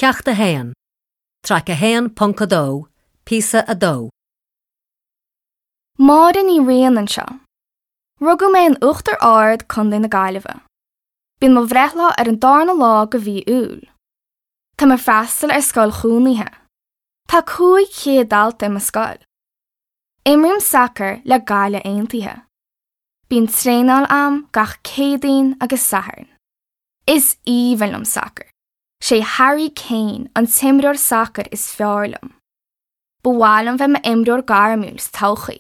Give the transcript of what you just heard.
Ceacht 1, Traic 1.2, Píosa 2. Máire Ní Riain anseo. Rugadh mé in Uachtar Ard, Co. na Gaillimhe. Bíonn mo bhreithlá ar an darna lá de mhí Iúil. Táim ag freastal ar scoil chónaithe. Tá 500 dalta i mo scoil. Imrím sacar le Gaillimh Aontaithe. Bíonn traenáil a'm gach Céadaoin agus Satharn. Is aoibhinn liom sacar. Sé Harry Kane an t-imreoir sacair is fearr liom. Ba mhaith liom bheith i m'imreoir gairmiúil sa todhchaí.